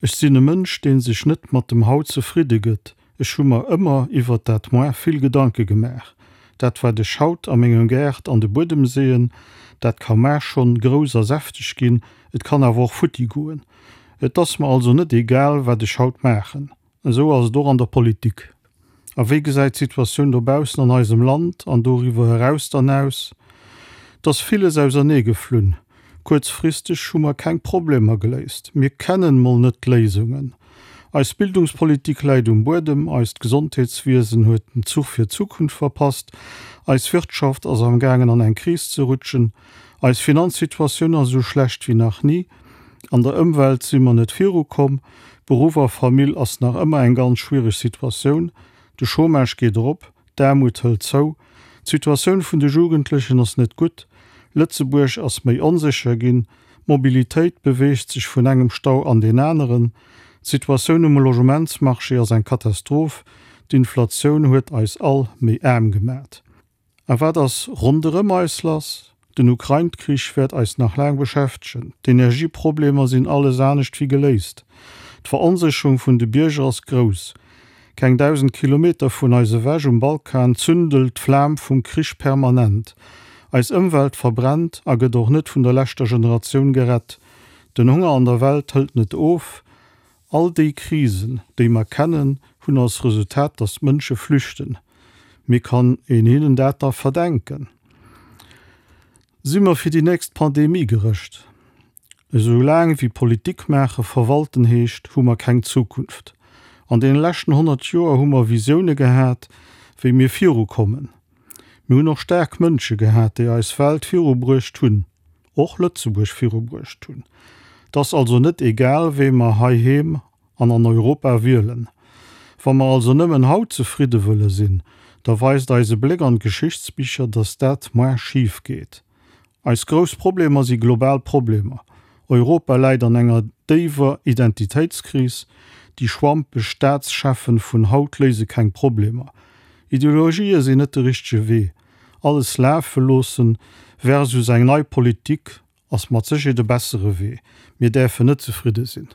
Ech sinn e Mënsch, dee sech net mat dem Haut zefridde gëtt. Ech hu mer ëmmer iwwert dat Moar vill Gedanke gemaach. Dat wat ech haut a mengem Gaart an de Buedem seeën, dat ka mar schonn grouss a säfteg ginn, et kann awer och futti goen. Et ass mer also net egal, wat ech haut maachen. Esou ass et och an der Politik. A wéi gesäit d'Situatioun dobaussen an eisem Land an doriwwer eraus dann aus? Et ass villes ausernee geflunn. Kuerzfristeg hu mer keng Problemer geléist. Mir kennen mol net d'Léisungen. Eis Bildungspolitik läit um Buedem, eist Gesondheetswiesen huet den Zuch fir d'Zukunft verpasst, eis Wirtschaft ass am gaangen an eng Kris ze rutschen, eis Finanzsituatioun ass esou schlecht wéi nach ni, an der Ëmwelt si mer net virukomm, Beruff a Famill ass nach ëmmer eng ganz schwiereg Situatioun, de Chômage geet erop, d'Aarmut hëlt zou, d'Situatioun vun de Jugendlechen ass net gutt, Lëtzebuerg ass méi onsécher ginn, d'Mobilitéit beweegt sech vun engem Stau an deen aneren, d'Situatioun um Logementsmarché ass eng Katastroph, d'Inflatioun huet eis all méi aarm gemat. A wat ass ronderëm eis lass? Den Ukrain-Krich wäert eis nach laang beschäftegen. D'Energieproblemer sinn alles anescht wéi geléist. D'Veronsécherung vun de Bierger ass grouss. Keng 1.000 Kilometer vun eis ewech um Balkan zündelt d'Flam vum Krich permanent. Eis Ëmwelt verbrennt a gëtt och net vun der leschter Generatioun gerett. Den Honger an der Welt hëlt net of. All déi Krisen, déi mer kennen, hunn als Resultat, datt d'Mënsche flüchten. Mee kann een hinnen dat da verdenken? Si mer fir déi nächst Pandemie gerëscht? Esou laang wéi Politik maache verwalten heescht, hu mer keng Zukunft. An deene leschten 100 Joer hu mer Visioune gehat, wéi mir virukommen. Mir hunn och staark Mënsche gehat, déi eis Welt virubruecht hunn. Och Lëtzebuerg virubruecht hunn. Et ass also net egal, wee mer heiheem an an Europa wielen. Wa mer also nëmmen haut zefridde wëlle sinn, da weist eise Bléck an d'Geschichtsbicher, datt dat moar schif geet. Eis grouss Problemer si global Problemer. Europa läit an enger déiwer Identitéitskris. Déi schwampeg Staatscheffen vun haut léise keng Problemer. Ideologië sinn net de richtege Wee. Alles lafe loossen versus eng nei Politik ass mat Sécherheet e bessere Wee. Mir däerfen net zefridde sinn.